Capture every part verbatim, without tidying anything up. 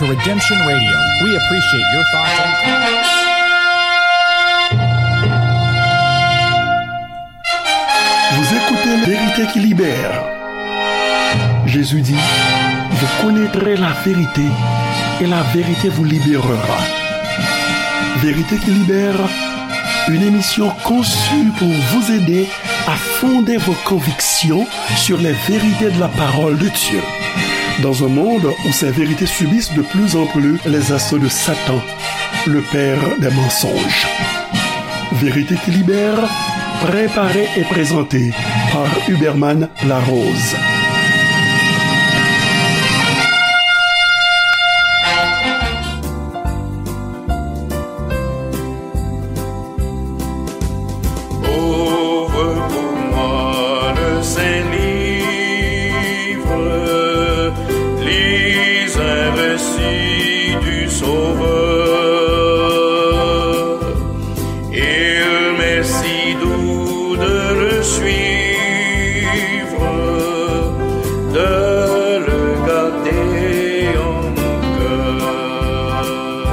Redemption Radio. We appreciate your thoughts and Vous écoutez La vérité qui libère. Jésus dit, vous connaîtrez la vérité et la vérité vous libérera. Vérité qui libère, une émission conçue pour vous aider à fonder vos convictions sur les vérités de la parole de Dieu. Dans un monde où ces vérités subissent de plus en plus les assauts de Satan, le père des mensonges. Vérité qui libère, préparée et présentée par Huberman Larose. Ouvre pour moi le saint livre, lis un récit du Sauveur. Il m'est si doux de le suivre, de le garder en mon cœur.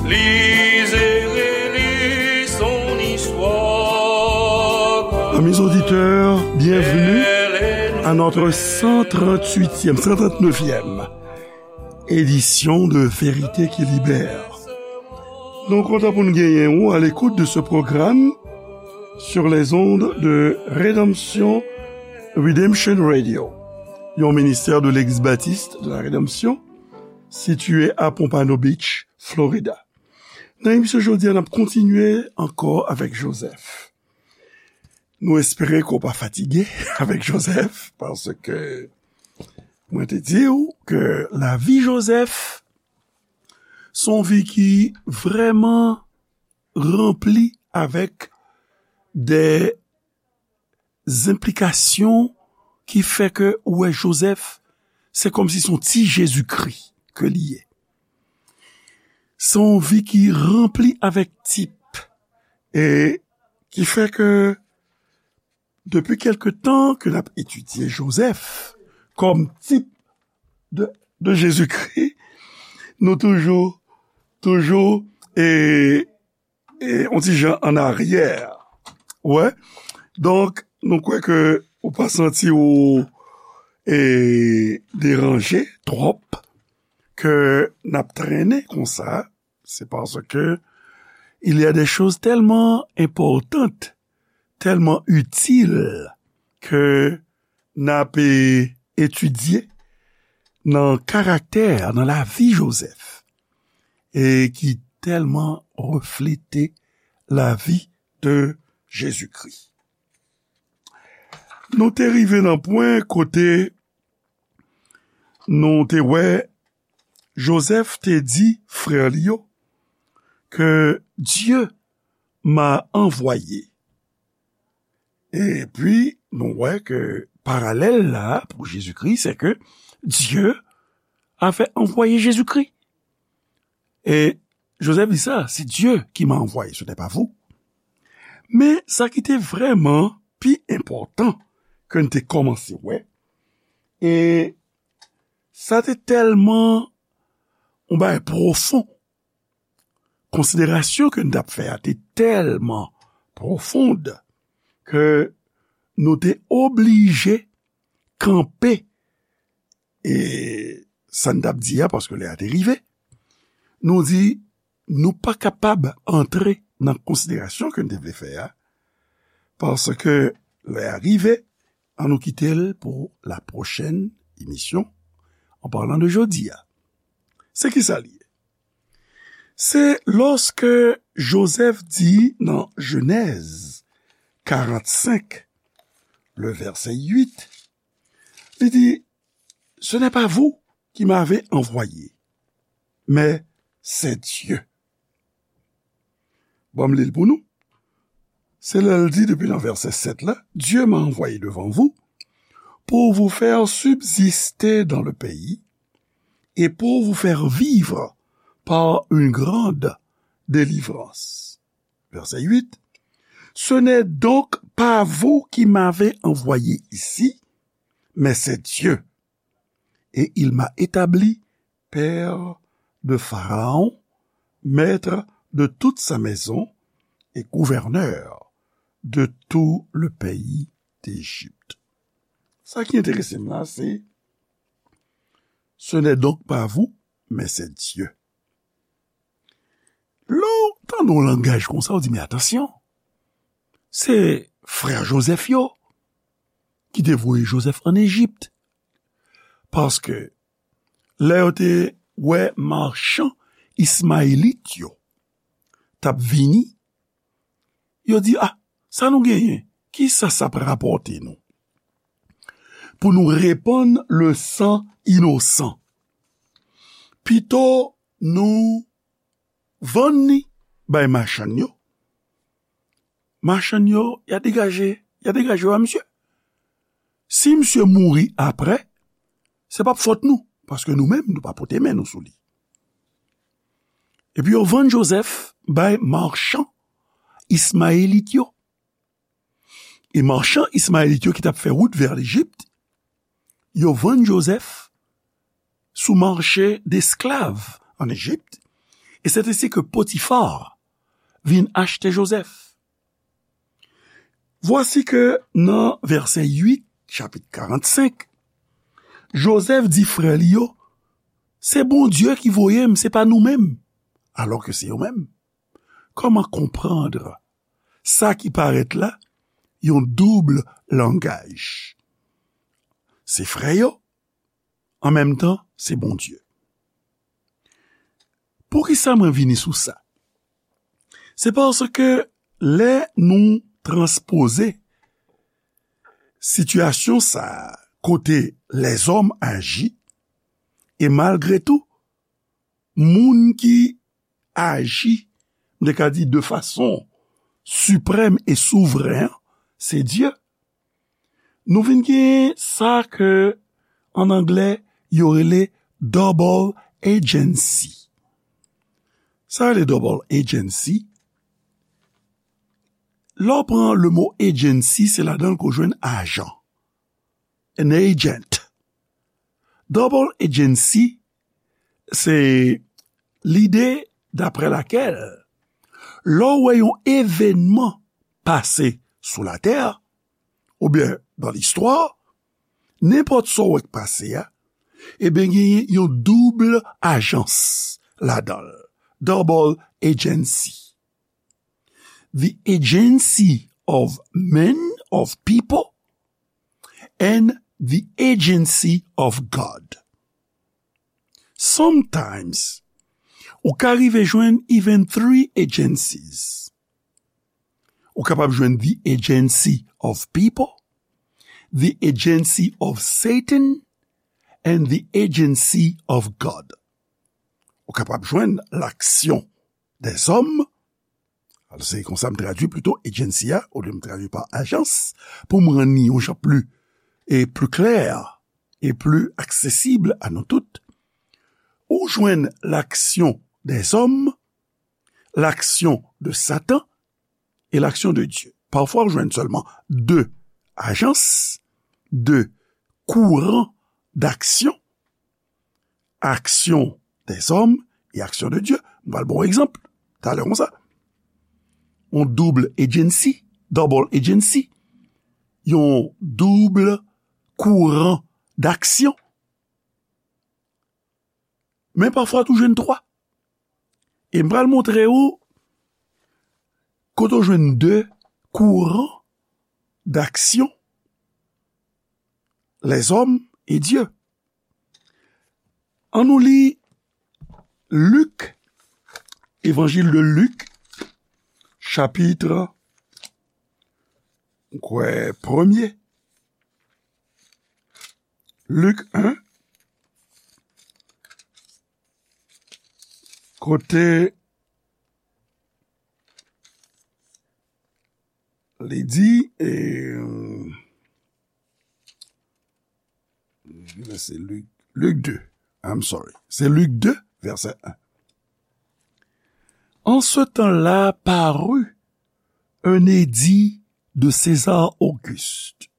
Lise et relis son histoire. Amis auditeurs, bienvenue à notre cent trente-huitième, cent trente-neuvième édition de Vérité qui Libère. Nou kontan pou n genyen ou à l'écoute de ce programme sur les ondes de Redemption, Redemption Radio, yon ministère de l'Église Baptiste de la Rédemption, situé à Pompano Beach, Florida. Nan emisyon jodi a, n ap kontinye ankò avèk Joseph. Nou espere ke w pa fatige avèk Joseph, paske mwen te di w ke lavi Joseph se yon vi ki vrèman ranpli avèk de enplikasyon ki fè ke ou wè Joseph, se kòmsi se yon ti Jezikri ke li ye. Se yon vi ki ranpli avèk tip, e ki fè ke depi kèlke tan ke n ap etidye Joseph kòm tip de, de Jezikri, nou toujou, toujou, e e, yon ti jan an aryè. Wè. Donk, nou kwè ke ou pa santi ou, e, deranje twòp ke n ap trennen konsa. C'est parce que il y a des choses tellement importantes, tellement utiles que n ap, e, etidye nan karaktè, nan lavi Joseph, e ki tèlman reflete lavi de Jezikri. Nou te rive nan pwen kote nou te wè Joseph te di frè li yo ke Dieu m'a envoyé. Epi, nou wè ke paralèl la pou Jezikri, se ke Dieu avait envoyé Jésus-Christ. E Joseph di sa, c'est Dieu qui m'a envoyé, ce n'est pas vous. Men sa ki te vrèman pi enpòtan ke n te kòmanse wè, e sa te tèlman yon bagay pwofon, konsiderasyon ke n t ap fè a te tèlman pwofon ke nou te oblije kanpe, e sa n t ap di a, paske lè a te rive. Nou di, nou pa kapab antre nan konsiderasyon ke n te vle fè a, paske lè a rive, ann nou kite l pou la pwochèn emisyon, an palan de jodi a. Se ki sa l ye? Se lòske Joseph di nan Jenèz karannsenk, le vèsè uit, li di, ce n'est pas vous qui m'avez envoyé, mais c'est Dieu. Bon, m li l pou nou. Se lè l di depi nan vèsè sèt la, Dieu m'a envoyé devant vous pour vous faire subsister dans le pays et pour vous faire vivre par une grande délivrance. Verset huit. Ce n'est donc pas vous qui m'avez envoyé ici, mais c'est Dieu. Et il m'a établi père de Pharaon, maître de toute sa maison, et gouverneur de tout le pays d'Égypte. Sa ki enterese m la, se, ce n'est donc pas vous, mais c'est Dieu. Lè w tande yon langaj konsa, w di, men atansyon, se frè Jozèf yo ki te voye Jozèf ann Ejip. Paske lè yo te wè machan Ismayelit yo t ap vini, yo di, a, sa nou genyen? Kisa sa p rapòte nou? Pou nou repann le san inosan. Pito nou vann li bay machann yo. Machann yo, y a degaje, y a degaje yo a misye. Si misye mouri apre, se p ap fòt nou, paske nou menm, nou pa pote men nou sou li. Epi yo vann Jozèf bay machan Ismayelit yo. E machan Ismayelit yo ki t ap fè wout vè Lejip, yo vann Jozèf sou mache desklav ann Ejip, e c'est ainsi que Potiphar vin achte Jozèf. Voici que nan vèsè uit, chapit karannsenk, Jozèf di frè li yo, se Bondye ki voye m, se pa nou menm, alò ke se yo menm. Kòman konprann sa ki parèt la yon doub langaj? Se frè yo, an menm tan, se Bondye. Poukisa mwen vini sou sa? Se paske lè nou transpoze sitiyasyon sa a, kote lèzòm aji, e malgre tou, moun ki aji, m te ka di de fason siprèm e souvren an, se Dye. Nou vin gen sa ke, an anglè, yo rele double agency. Sa rele double agency. Lè w pran le mo agency, se ladan l ke w jwenn ajan. An agent. Double agency, se lide daprè lakèl, lè w wè yon evènman pase sou latè, oubyen nan listwa, nenpòt sa w wè k pase a, ebyen, genyen yon doub ajans ladan l, double agency. The agency of men, of people, and the agency of God. Sometimes, ou ka rive jwenn even three agencies. Ou kapab jwenn the agency of people, the agency of Satan, and the agency of God. Ou kapab jwenn l'action des hommes, se konsa m tradui plito agency a, olye m tradui pa ajans, pou m rann li yon jan pli, e pli klè, e pli aksesib a nou tout. Ou jwenn l'action des hommes, l'action de Satan, e l'action de Dieu. Pafwa, ou jwenn sèlman de ajans, de kouran d'aksyon, action des hommes et action de Dieu. M pral ba w egzanp talè konsa. Yon double agency, double agency. Yon doub kouran d'aksyon. Men pafwa tou jwenn twa. E m pral montre ou kote w jwenn de kouran d'aksyon, lèzòm e Dye. Ann nou li Lik, Évangile de Luc, chapit, m kwè, premye. Lik en, kote li di, e, se Lik, Lik de, I'm sorry, se Lik de, vèsè en. En ce temps-là parut un édit de César Auguste,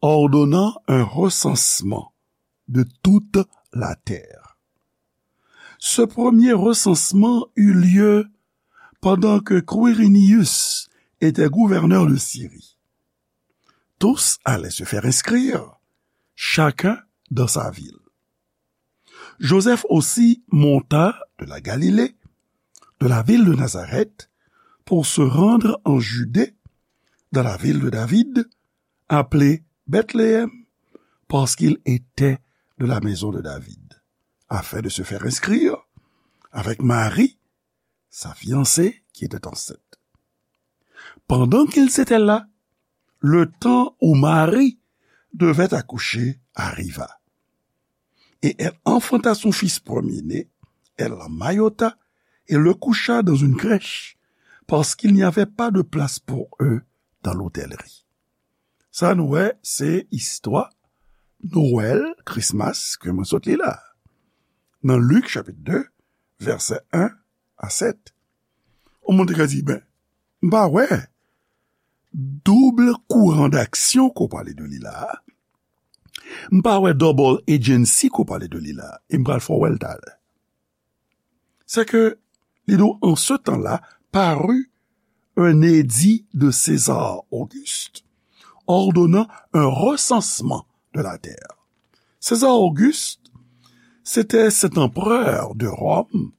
ordonnant un recensement de toute la terre. Ce premier recensement eut lieu pendant que Quirinius était gouverneur de Syrie. Tous allaient se faire inscrire, chacun dans sa ville. Joseph aussi monta de la Galilée, de la ville de Nazareth, pour se rendre en Judée, dans la ville de David, appelée Bethléem, parce qu'il était de la maison de David, afin de se faire inscrire avec Marie, sa fiancée qui était enceinte. Pendant qu'ils étaient là, le temps où Marie devait accoucher arriva. Et elle enfanta son fils premier-né, elle l'emmaillota et le coucha dans une crèche, parce qu'il n'y avait pas de place pour eux dans l'hôtellerie. Sa nou wè, se istwa Nwèl, Christmas, ke mwen sot li la. Nan Lik, chapit de, vèsè en a sèt. Yon moun te ka di, ben, m pa wè double courant d'action ke w pale de li la. M pa wè double agency ke w pale de li la. E m pral fè w wè l talè. C'est que, li di w, en ce temps-là, parut un édit de César Auguste ordonnant un recensement de la terre. César Auguste, c'était cet empereur de Rome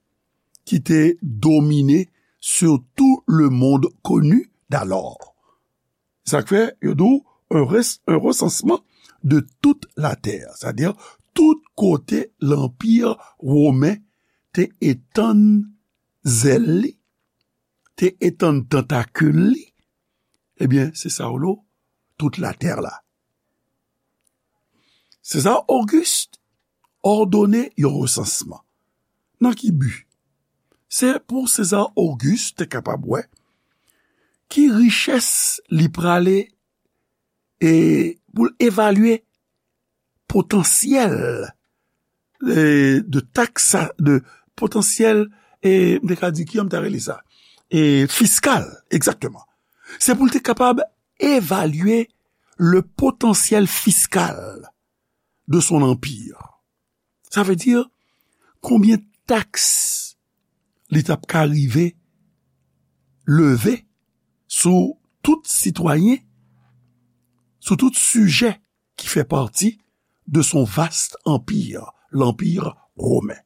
qui était dominé sur tout le monde connu d'alors. Sa k fè, yo di w, un res-, un recensement de toute la terre. Sètadi, tout kote lanpi women te etann zèl li, te etann tantakil li, ebyen, se sa yo rele tout latè la. César Auguste òdone yon resansman. Nan ki bi? Se pou César Auguste te kapab wè ki richès li prale e pou l evalye potansyèl, e, de taks, de potansyèl, e, m te ka di, ki jan m ta rele sa? E, fiskal, egzakteman. Se pou l te kapab evalye le potentiel fiscal de son empire. Sa vle di, konbyen taks li t ap ka rive leve sou tout sitwayen, sou tout sijè ki fè pati de son vaste empire, lanpi women.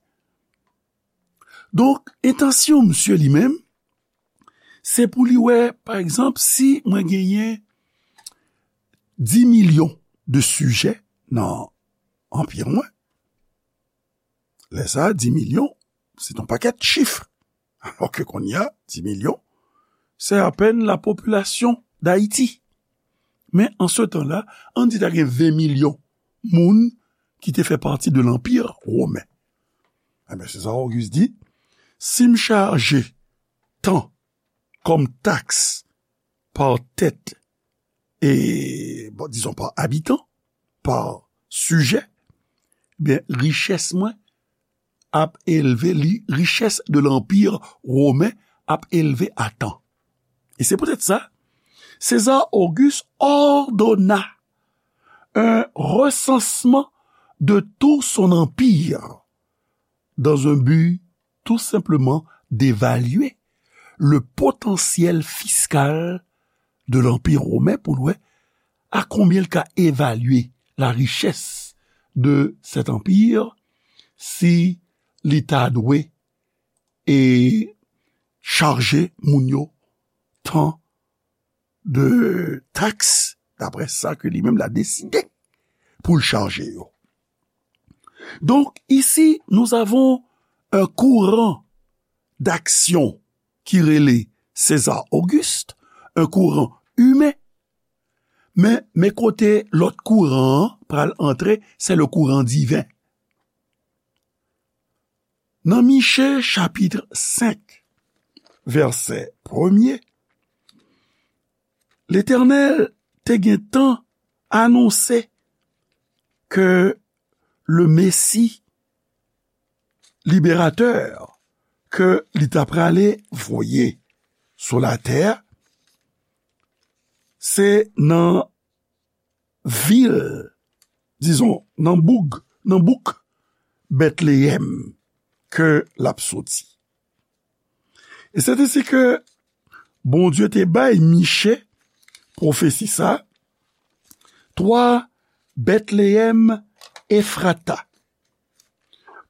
Donk, entansyon misye li menm, se pou li wè, pa egzanp, si mwen genyen dis milyon de sijè nan anpi mwen, lè sa a, dis milyon, se yon pakèt chif. Alò ke kounye a, dis milyon, se apèn la popilasyon Dayiti. Men an se tan la, ann di ta gen ven milyon moun ki te fè pati de lanpi women. Ebyen, César Auguste di, si m chaje tan kòm taks pa tèt, e, bon, dizon, pa abitan, pa sijè, ebyen, richès mwen ap elve, li, richès de lanpi women ap elve a tan. E se poutèt sa, César Auguste ordonna un recensement de tout son empire dans un but tout simplement d'évaluer le potentiel fiscal de l'Empire romain, pou l wè a konbyen l ka evalye la richès de cet empire si li ta dwe e chaje moun yo tan de taks, daprè sa ke li menm la deside pou l chaje yo. Donc, ici, nous avons un courant d'action ki rele César Auguste, un courant humain, men, men kote lòt kouran an pral antre, se le courant divin. Nan Miche chapit senk, vèsè premye, Letènèl te gentan anonse ke le Mesi liberatè ke li ta prale voye sou latè, se nan vil, dizon, nan boug, nan bouk Bètleyèm, ke l ap soti. E se te si ke Bondye te bay Miche pwofesi sa, toi, Bethléem Ephrata,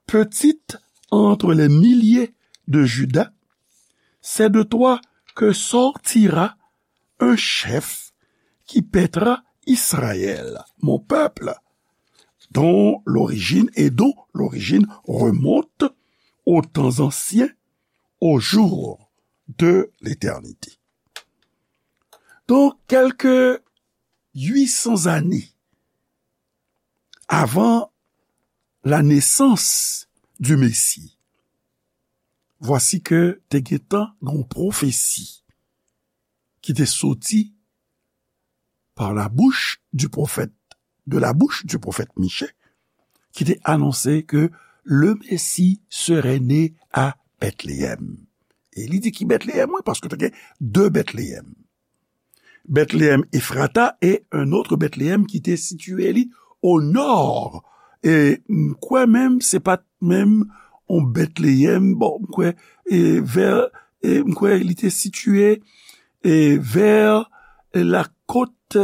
petite entre les milliers de Juda, c'est de toi que sortira un chef qui paîtra Israël, mon peuple, dont l'origine et dont l'origine remonte aux temps anciens, aux jours de l'éternité. Donc, quelques huit cents années avant la naissance du Messie, voici que te gentan gen yon pwofesi ki te soti par la bouche du prophète, de la bouche du prophète Michée, ki te anonse ke le Messie serait né à Bethléem. E li di ki Bethléem, wi, paske te gen de Bethléem. Bethléem Ephrata e un autre Bethléem ki te sitiye li o nò. E m kwè menm, se pa t menm yon Bethléem, bon, m kwè, e vè, e m kwè li te sitiye, e vè la côte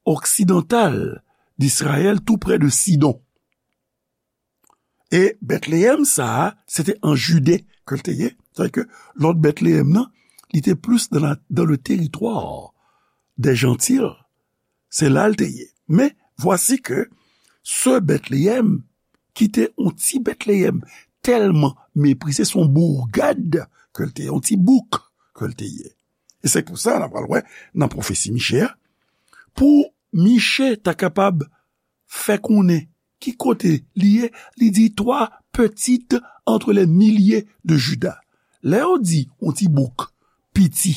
occidentale d'Israël, tou prè de Sidon. E Bethléem sa a, se te an Jide ke l te ye. Sètadi ke lòt Bethléem nan, li te plis dans la, dans le territoire des Gentils. Se la l te ye. Men, voici que ce Bethléem, ki te yon ti Bethléem tèlman meprize, se yon bourgade ke l te ye, yon ti bouk ke l te ye. E se pou sa, n ap pral wè nan pwofesi Miche a, pou Miche ta kapab fè konnen ki kote li ye, li di, toi, petite entre les milliers de Juda. Lè yo di yon ti bouk piti,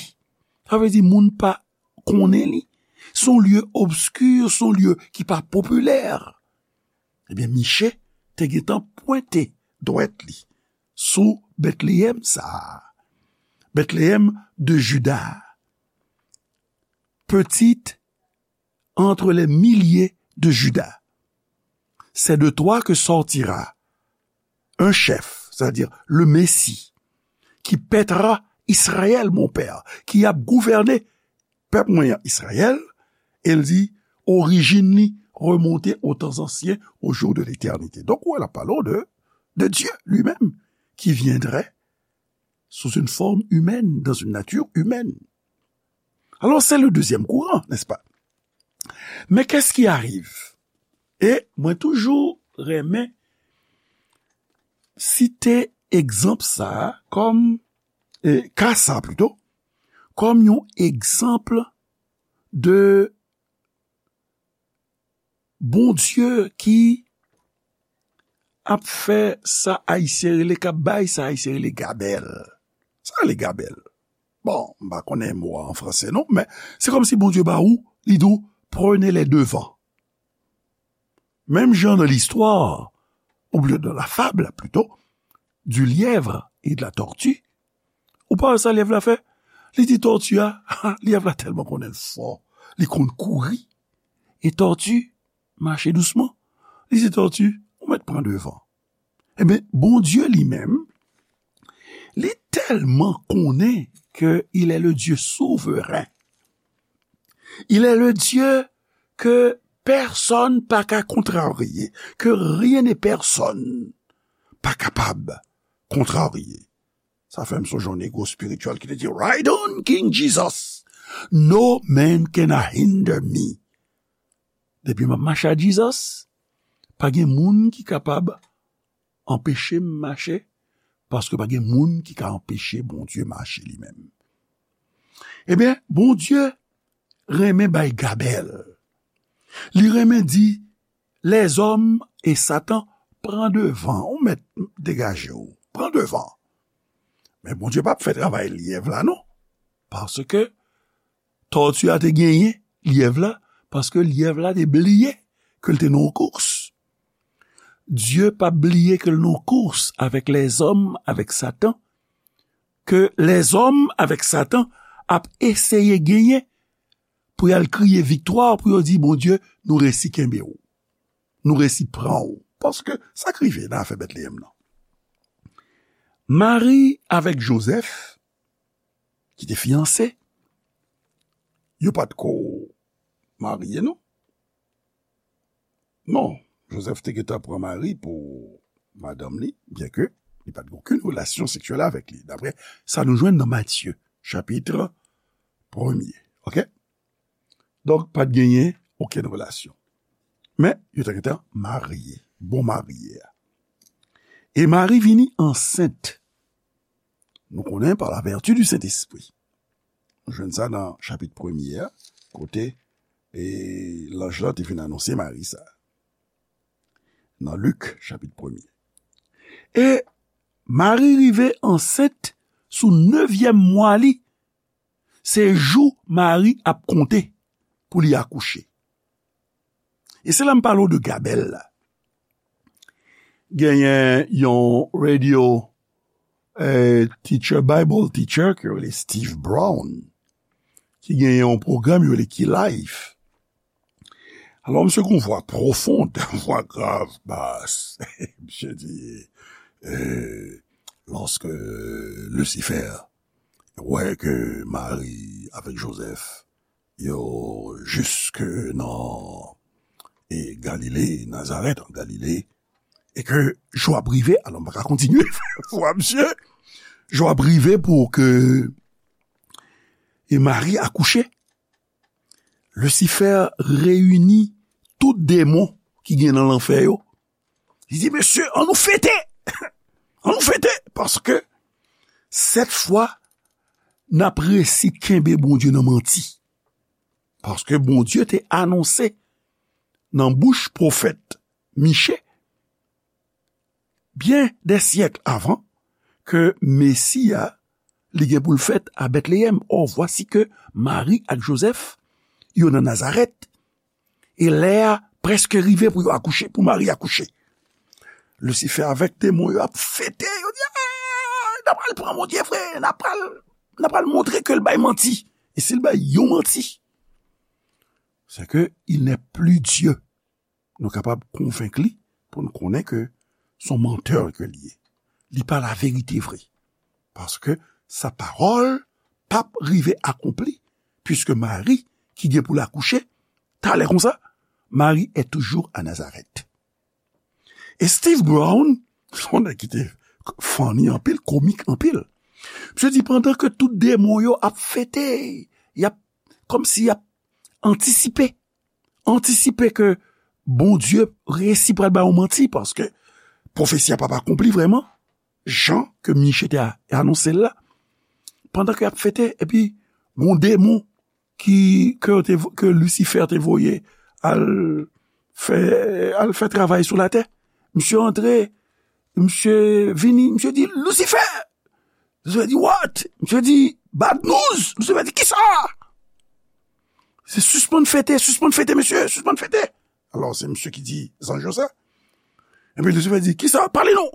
sa vle di moun pa konnen li. Se yon lye obski, se yon lye ki pa popilè. Ebyen, Miche te gentan pwente dwèt li sou Bethléem sa a. Bethléem de Juda, petite entre les milliers de Juda. C'est de toi que sortira un chef, c'est-à-dire le Messie, qui paîtra Israël, mon père, ki ap gouvène pèp mwen an, Izrayèl, e l di, orijin li remonte aux temps anciens, aux jours de l'éternité. Donk, ou wè, l ap pale w de, de Dieu lui-même, qui viendrait sous une forme humaine, dans une nature humaine. Alors, c'est le deuxième courant, n'est-ce pas? Mais qu'est-ce qui arrive? E mwen toujou renmen site egzanp sa a kòm, e, ka sa a plito, kòm yon egzanp de Bondye ki ap fè sa Ayisyen rele, k ap bay sa Ayisyen rele gabèl. Sa rele gabèl. Bon, m pa konnen mo a an franse non, men se kòmsi Bondye ba ou, li di w, prenez les devants. Menm jan nan listwa, oubyen dans la fable plutôt, du lièvre et de la tortue, ou pa wè sa lyèv la fè? Li di tòti a, lyèv la tèlman konnen l fò, li konn kouri. E tòti mache dousman. Li di tòti, ou mèt pran devan. Ebyen, Bondye li menm, li tèlman konnen ke il est le Dieu souverain. Il est le Dieu que personne pa ka kontrarye, que rien et personne pa kapab kontrarye. Sa fè m sonje yon negro espirityèl ki te di, "Ride on, King Jesus. No man can hinder me." Depi m ap mache ak Jesus, pa gen moun ki kapab anpeche m mache, paske pa gen moun ki ka anpeche Bondye mache li menm. Ebyen, Bondye renmen bay gabèl. Li renmen di, lèzòm e Satan pran devan, ou mèt degaje w, pran devan. Men Bondye p ap fè travay lyèv la non, paske tòti a te genyen lyèv la, paske lyèv la te bliye ke l te nan yon kous. Dye p ap bliye ke l nan yon kous avèk lèzòm, avèk Satan, ke lèzòm avèk Satan ap eseye genyen pou y al kriye viktwa, pou yo di, "Bondye, nou resi kenbe w. Nou resi pran w." Paske sa k rive nan afè Betleyèm nan. Mari avèk Jozèf, ki te fiyanse, yo pa t ko marye, non. Non, Jozèf te gentan pran Mari pou madanm li, byenke li pa t gen okenn relasyon seksyèl avèk li, daprè sa nou jwenn nan Matye, chapit premye. Oke? Donk, pa t genyen okenn relasyon. Men, yo te gentan marye, bon marye a. E Mari vini ansent. Nou konnen pa la vèti di Sentespri. Nou jwenn sa nan chapit premye a, kote e lanj la te vin anonse Mari sa. Nan Lik, chapit premye. E Mari rive ansent sou nevyèm mwa li. Se jou Mari ap konte pou li akouche. E se la m pale w de gabèl la. Genyen yon radio, eh, teacher, Bible teacher, ki rele Steve Brown, ki genyen yon pwogram yo rele Key Life. Alò, misye gen yon vwa pwofon, yon vwa grav, bas. Misye di, eh, lòske Lisifè wè ke Mari avèk Jozèf, yo jiske nan, e, Galile, Nazarèt, an Galile, e ke jou ap rive, alò, m pa ka kontinye, vwa misye, jou ap rive pou ke, e, Mari akouche. Lisifè reyini tout demon ki gen nan lanfè yo. Li di, "Mesye, ann nou fete! Ann nou fete! Paske sèt fwa, n ap resi kenbe Bondye nan manti." Paske Bondye te anonse nan bouch pwofèt Miche, byen dè syèk avan, ke Mesi a, li gen pou l fèt a Bètleyèm. Ò, vwasi ke Mari ak Jozèf, yo nan Nazarèt, e lè a prèske rive pou yo akouche, pou Mari akouche. Lisifè avèk demon yo ap fete, yo di, "Ah, n a pral pran Bondye vre, n a pral, n a pral montre ke l bay manti." E si l bay yon manti, se ke il n'est plus Dieu. Nou kapab konvenk li pou n konnen ke se yon mantè ke l ye. Li pa laverite vre. Paske sa pawòl p ap rive akonpli, piske Mari, ki gen pou l akouche, talè konsa, Mari est toujours à Nazareth. E Steve Brown, se yon nèg ki te funny anpil, komik anpil. Misye di pandan ke tout demon yo ap fete, y ap, kòmsi y ap antisipe, antisipe ke Bondye resi pral ba yo manti, paske pwofesi a p ap akonpli vrèman, jan ke Miche te a-, anonse l la. Pandan ke y ap fete, epi gon demon ki, ke yo te, ke Lisifè te voye al fè, al fè travay sou latè. Misye antre, misye vini, misye di, "Lisifè!" Misye di, "What?" Misye di, "Bad news!" Misye di, "Kisa?" Se sispann fete, sispann fete, mesye, sispann fete. Alò, se misye ki di zanj yo sa. Epi Lisifè di, "Kisa? Pale non!"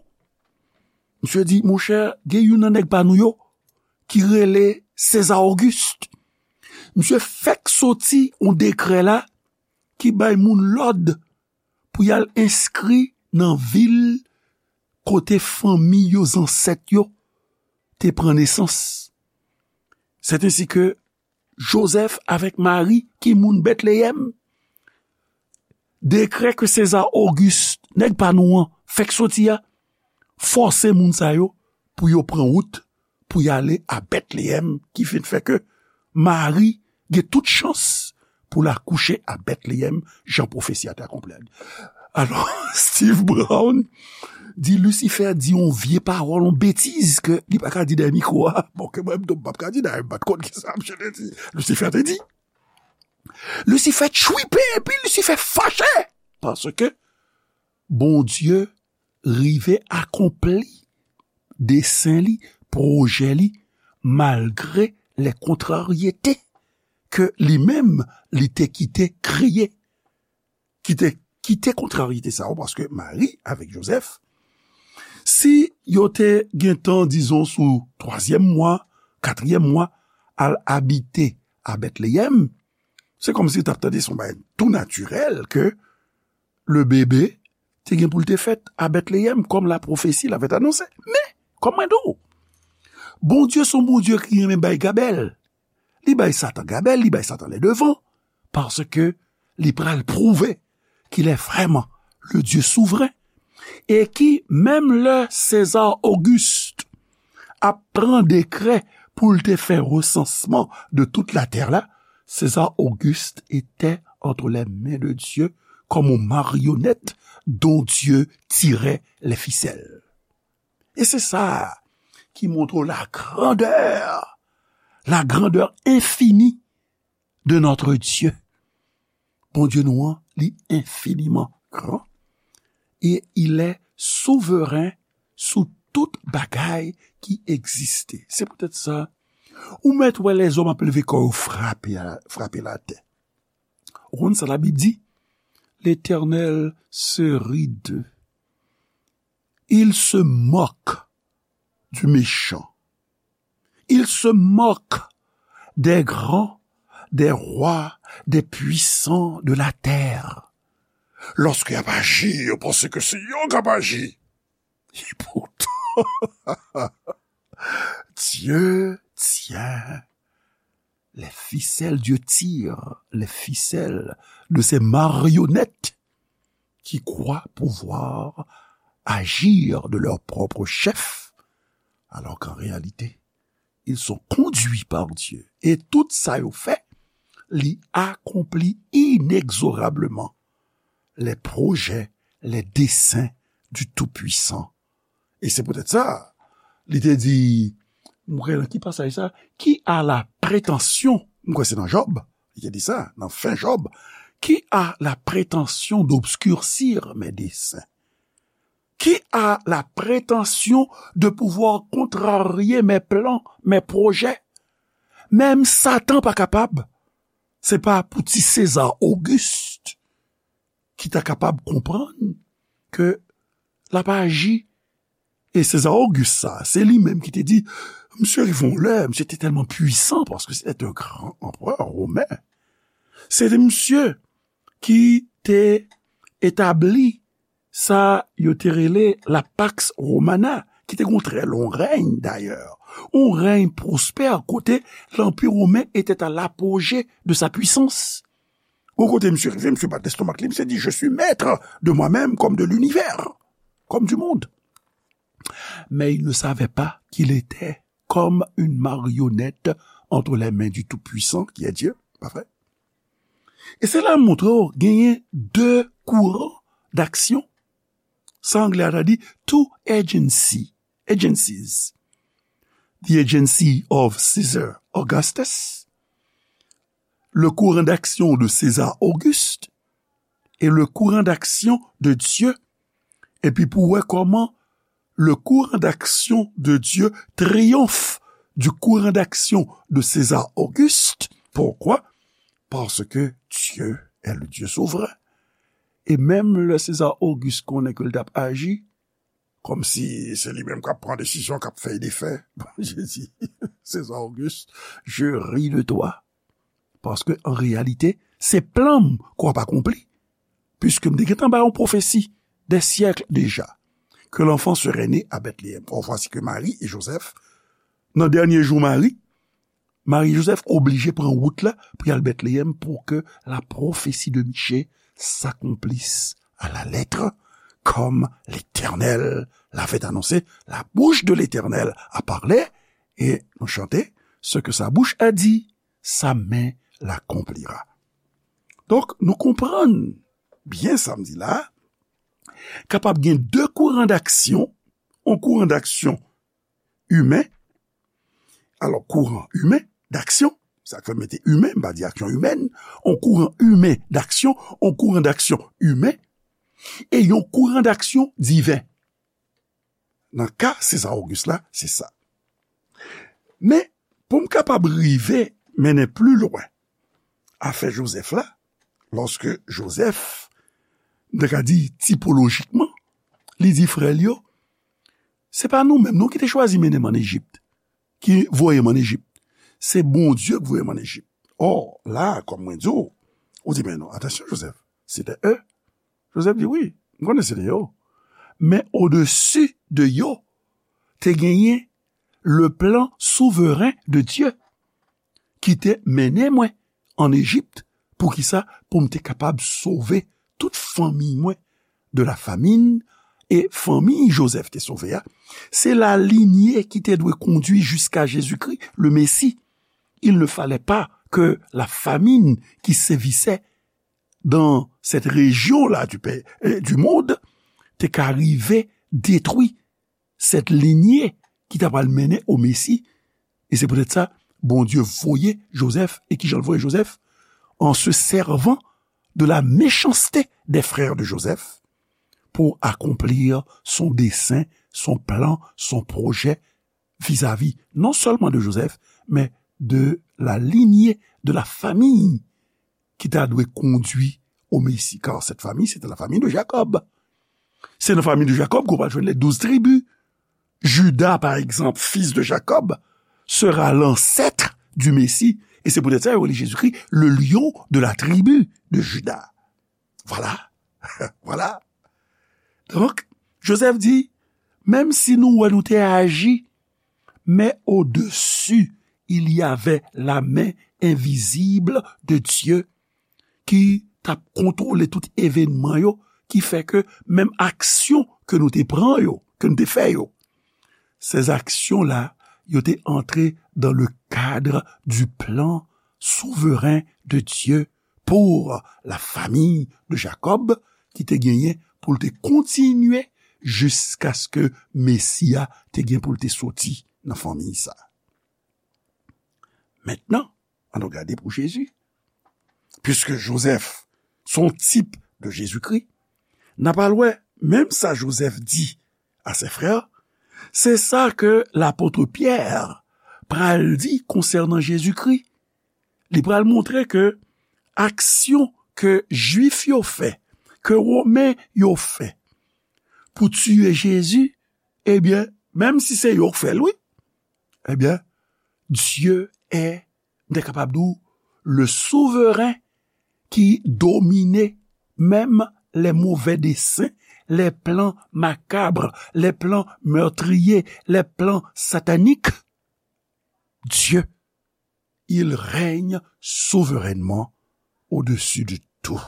Misye di, "Monchè, gen youn nan nèg pa nou yo ki rele Seza Ogis. Misye fèk soti yon dekrè la ki bay moun lòd pou y al enskri nan vil kote fanmi yo, zansèt yo, te pran nesans. Sètensi ke Jozèf avèk Mari, ki moun Bètleyèm, dekrè ke Seza Ogis, nèg pa nou an, fèk soti a, fòse moun sa yo pou yo pran wout pou y ale a Bètleyèm, ki vin fè ke Mari gen tout chans pou l akouche a Bètleyèm, jan pwofesi a te akonpli." Alò, Steve Brown di Lisifè di yon vye pawòl, yon betiz ke li pa ka di dèyè mikwo a. Bon, ke mwen menm tou, m p ap ka di dèyè, m pa t konn kisa misye te di. Lisifè te di. Lisifè tchwipe, epi Lisifè fache. Paske Bondye rive akonpli desen li, pwojè li, malgre lè kontraryete ke li menm li te kite kreye, ki te kite kontraryete sa yo, paske Mari avèk Jozèf, si yo te gentan, dizon, sou twazyèm mwa, katriyèm mwa, al abite a Bètleyèm, se kòmsi yo t ap tande se yon bagay tou natirèl ke le bebe te gen pou l te fèt a Bètleyèm, kòm la pwofesi l avè t anonse. Men, Kòm mwen di w, Bondye se yon Bondye ki renmen bay gabèl. Li bay Satan gabèl, li bay Satan lè devan, paske li pral pwouve qu'il est vraiment le Dieu souverain, e ki, menm lè César Auguste ap pran dekrè pou l te fè resansman de tout la terre la, César Auguste était entre les mains de Dieu comme une marionnette dont Dieu tirait les ficelles. E se sa ki montre la grandeur, la grandeur infinie de notre Dieu. Bondye nou an, li infiniman gran, e il est souverain sou tout bagay ki egziste. Se poutèt sa, ou mèt wè lèzòm ap leve kò yo frape, frape latè. Ou konn sa Labib di? L'Éternel se rit d'eux. Il se moque du méchant. Il se moque des grands, des rois, des puissants de la terre. Lorsque y ap aji, yo panse ke se yo k ap aji. E poutan, Dieu tient les ficelles, Dieu tire les ficelles de ces marionnettes qui croient pouvoir agir de leur propre chef, alors qu'en réalité, ils sont conduits par Dieu. Et tout sa yo fè, li akonpli inexorablement les projets, les desseins du Tout-Puissant. E se poutèt sa, li te di, m kwè nan ki pasaj sa, qui a la prétention, m kwè se nan Jòb, li te di sa, nan fen Jòb, qui a la prétention d'obscurcir mes desseins? Qui a la prétention de pouvoir contrarier mes plans, mes projets? Menm Satan pa kapab. Se pa pou ti César Auguste ki ta kapab konprann ke l ap aji. E César Auguste sa, se li menm ki te di, misye rive yon lè, misye te tèlman pwisan paske se te yon gran anperè women. Se te misye ki te etabli sa yo te rele la Pax Romana, ki te gen yon trè long rèy dayè, yon rèy pwospè kote lanpi women était à l'apogée de sa puissance. Yon kote misye rive, misye bat lestomak li, misye di, je suis maître de moi-même comme de l'univers, comme du monde. Mais il ne savait pas qu'il était comme une marionnette entre les mains du Tout-Puissant, qui est Dieu, pa vre? E se la m montre w genyen de kouran d'aksyon. Sa anglè a ta di two agency, agencies. The agency of Caesar Augustus, le courant d'action de César Auguste et le courant d'action de Dieu. Epi pou wè kòman le courant d'action de Dieu triomphe du courant d'action de César Auguste. Pourquoi? Parce que Dieu est le Dieu souverain. E menm lè César Auguste konnen ke l t ap aji, kòmsi se li menm k ap pran desizyon, k ap fè e defè. Bondye di, César Auguste, je ris de toi. Paske, an reyalite, se plan m ke w ap akonpli. Puiske m te gentan bay yon pwofesi des siècles déjà, que l'enfant serait né à Bethléem. Or, voici que Marie et Joseph, nan dènye jou Mari, Mari Joseph oblije pran wout la pou y al Bètleyèm pour que la prophétie de Michée s'accomplisse à la lettre, comme l'Éternel l'avait annoncé. La bouche de l'Éternel a parlé, et nou chante, ce que sa bouche a dit, sa main l'accomplira. Donk, nou konprann byen sa m di la, kapab gen de kouran d'aksyon, yon kouran d'aksyon imen, alò, kouran imen d'aksyon, sa k fè m mete imen, m pa di aksyon imèn, yon kouran imen d'aksyon, yon kouran d'aksyon imen, e yon kouran d'aksyon diven. Nan ka César Auguste la, se sa. Men, pou m kapab rive mennen pli lwen afè Jozèf la, lòske Jozèf, m ta ka di tipolojikman, li di frè l yo, se pa nou menm non ki te chwazi mennen m ann Ejip, ki voye m ann Ejip. Se Bondye ki voye m ann Ejip. Ò, la, kòm mwen di w, ou di, men non, atansyon, Jozèf, se te e. Jozèf di, wi, m konnen se te yo. Men odesi de yo, te genyen le plan souveren de Dye ki te mennen mwen an Ejip. Poukisa? Pou m te kapab sove tout fanmi mwen de la famine. E fanmi Jozèf te sove a, se la lignée ki te dwe kondui jiska Jezikri, le Mesi. Il ne fallait pas que la famine qui sévissait dans cette région-là du, pè- euh, du monde te ka rive detwi cette lignée ki ta pral mennen o Mesi. E se poutèt sa, Bondye voye Jozèf. E kijan l voye Jozèf? En se servant de la méchanceté des frères de Joseph pour accomplir son dessein, son plan, son projet vis-à-vis non seulement de Joseph, mais de la lignée, de la famille ki ta dwe kondui o Mesi, car cette famille, c'était la famille de Jacob. Se nan fanmi de Jakòb ke w pral jwenn les douze tribus. Juda, par exemple, fils de Jacob, sera l'ancêtre du Messie. E se poutèt sa yo rele Jezikri le lion de la tribu de Juda. Vwala. Vwala. Donk, Jozèf di, menm si nou wè nou te aji, mais au-dessus, il y avait la main invisible de Dieu ki t ap kontwole tout evènman yo, ki fè ke menm aksyon ke nou te pran yo, ke nou te fè yo, ces actions-là, yo te antre dans le cadre du plan souverain de Dieu pour la famille de Jacob, ki te genyen pou l te kontinye jiskaske Mesi a te gen pou l te soti nan fanmi sa. Mentnan, ann nou gade pou Jezi. Piske Jozèf se yon tip de Jezikri, n a pral wè menm sa Jozèf di a se frè, se sa ke lapot Pyè pral di konsènan Jezikri. Li pral montre ke aksyon ke Jwif yo fè, ke Women yo fè pou tiye Jezi, ebyen, menm si se yo k fè l, wi, ebyen, Dye è, m te kapab di w, le souveren ki domine menm les mauvais desseins, les plans macabres, les plans meurtriers, les plans sataniques. Dieu, il règne souverainement au-dessus de tout,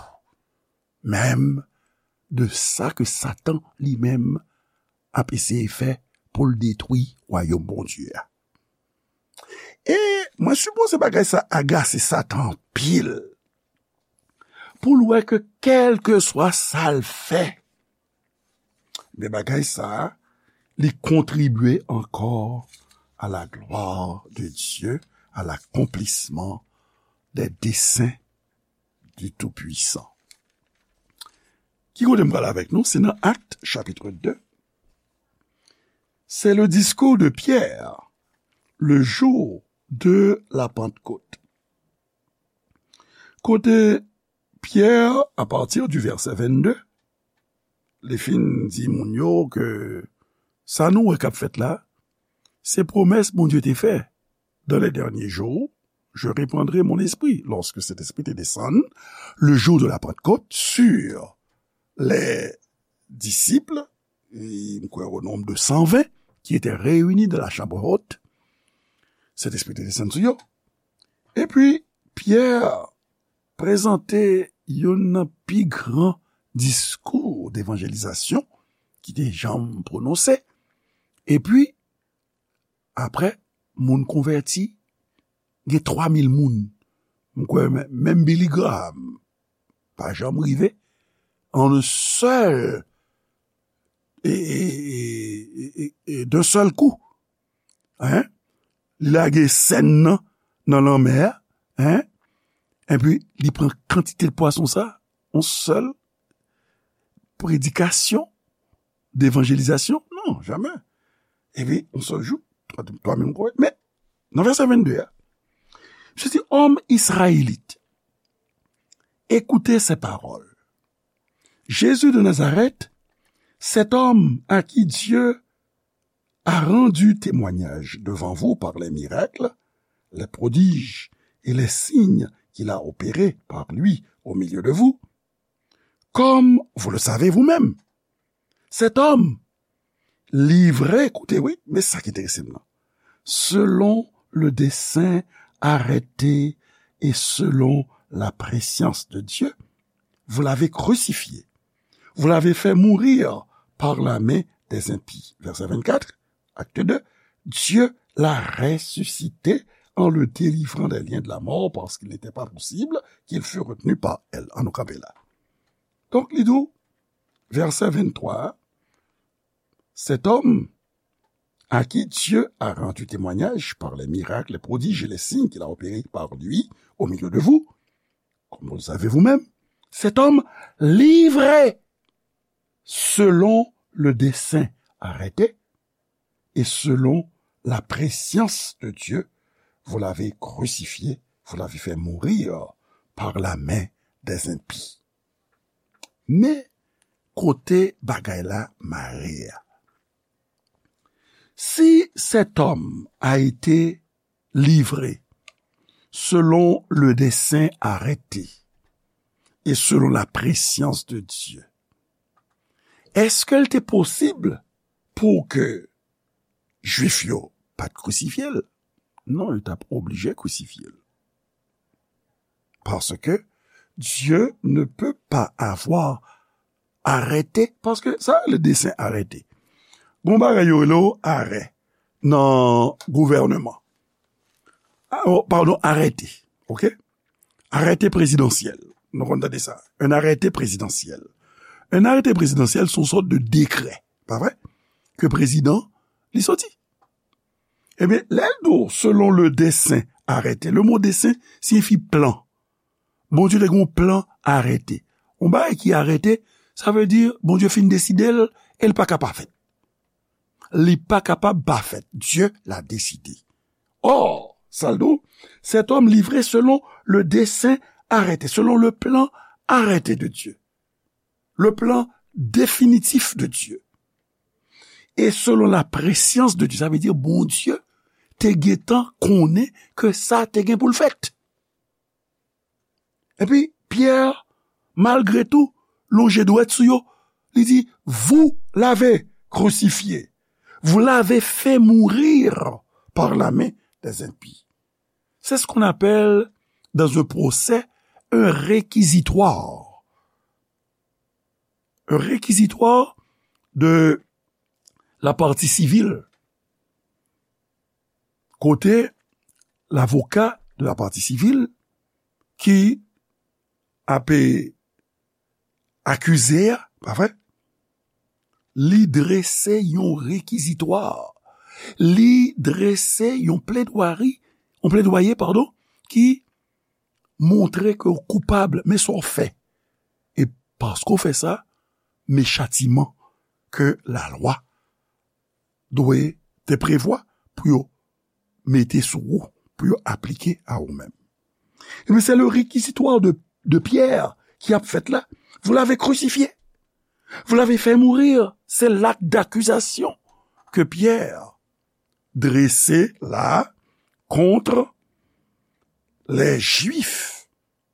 menm de sa ke Satan li menm ap eseye fè pou l detwi wayòm Bondye a. E mwen sipoze bagay sa agase Satan anpil, pou l wè ke kèlkeswa sa l fè, men bagay sa, li kontribye ankò à la gloire de Dieu, à l'accomplissement des desseins du Tout-Puissant. Ki kote m pral avèk nou? Se nan Actes, chapitre deux. C'est le discours de Pierre, le jour de la Pentecôte. Kote Pyè, à partir du verset vingt-deux, li fin di moun yo ke sa nou wè k ap fèt la, se pwomès Bondye te fè. Dans les derniers jours, je répandrai mon esprit. Lorsque cet esprit te descend, le jour de la Pentecôte, sur les disciples, et, m kwè, au nombre de cent vingt qui étaient réunis dans la chambre haute, Sentespri te desann sou yo. Epi, Pyè prezante youn nan pi gran diskou devanjelizasyon ki te janm pwononse. Epi, apre, moun konvèti, gen twa mil moun. M kwè men-, menm Billy Graham pa janm rive an sèl, e, e, e, e, e, d'un seul coup. Hein? Li lage sèn nan, nan lanmè a, hein? Epi, li pran kantite pwason sa, yon sèl predikasyon, devanjelizasyon? Non, jamè. Epi, yon sèl jou, twa, twa mil moun konvèti. Men, nan vèsè vennde a, Jésus dit, Hommes israélites, écoutez ces paroles. Jésus de Nazareth, cet homme à qui Dieu a rendu témoignage devant vous par les miracles, les prodiges et les signes qu'il a opérés par lui au milieu de vous, comme vous le savez vous-même. Cet homme, livrer, koute, wi, men sa ki enterese m nan. Selon le dessein arrêté et selon la prescience de Dieu, vous l'avez crucifié. Vous l'avez fait mourir par la main des impies. Verset vingt-quatre, acte deux. Dieu l'a ressuscité en le délivrant des liens de la mort parce qu'il n'était pas possible qu'il fût retenu par elle. Ann nou kanpe la. Donk, li di w, verset vingt-trois, cet homme à qui Dieu a rendu témoignage par les miracles, les prodiges et les signes qu'il a opérés par lui au milieu de vous, comme vous le savez vous-même, cet homme livré selon le dessein arrêté et selon la prescience de Dieu, vous l'avez crucifié, vous l'avez fait mourir par la main des impies. Men kote bagay la mare a. Si cet homme a été livré selon le dessein arrêté et selon la prescience de Dieu, èske l te posib pou ke Jwif yo pa t krisifye l? Non, yo t ap oblije krisifye l. Parce que Dieu ne peut pas avoir arrêté, paske sa le dessein arrêté. Gon bagay yo rele w arè nan gouvènman. Ah, oh, pardon, arrêté. OK? Arrêté présidentiel. Nou konn tande sa. Un arrêté présidentiel. Un arrêté présidentiel, se yon sòt de décret, pa vre? Ke prezidan, li soti. Ebyen, lè l di w, selon le dessein arrêté. Le mo dessein siyifi plan. Bondye te gen yon plan arrêté. Yon bagay ki arrêté, sa vle di Bondye fin deside l e l pa ka pa fèt. Li pa kapab pa fèt. Dieu l'a décidé. Or, sa l di w, cet homme livré selon le dessein arrêté, selon le plan arrêté de Dieu, le plan définitif de Dieu, et selon la prescience de Dieu, sa vle di Bondye te gentan konnen ke sa te gen pou l fèt. Epi, Pyè, malgre tou, lonje dwèt sou yo, li di, vous l'avez crucifié, vous l'avez fait mourir par la main des impies. C'est ce qu'on appelle, dans un procès, un réquisitoire. Un réquisitoire de la partie civile. Kote lavoka de la partie civile ki ap akize a, pa vre? Li drese yon rekizitwa. Li drese yon pledwari, yon pledwaye, padon, ki montre ke w koupab, men sa w fè. E paske w fè sa, men chatiman ke lalwa dwe te prevwa pou yo mete sou ou, pou yo aplike a ou menm. Ebyen, se le réquisitoire de, de Pierre ki ap fèt la. Vous l'avez crucifié. Vous l'avez fait mourir. C'est l'acte d'accusation que Pierre dresse la contre les Juifs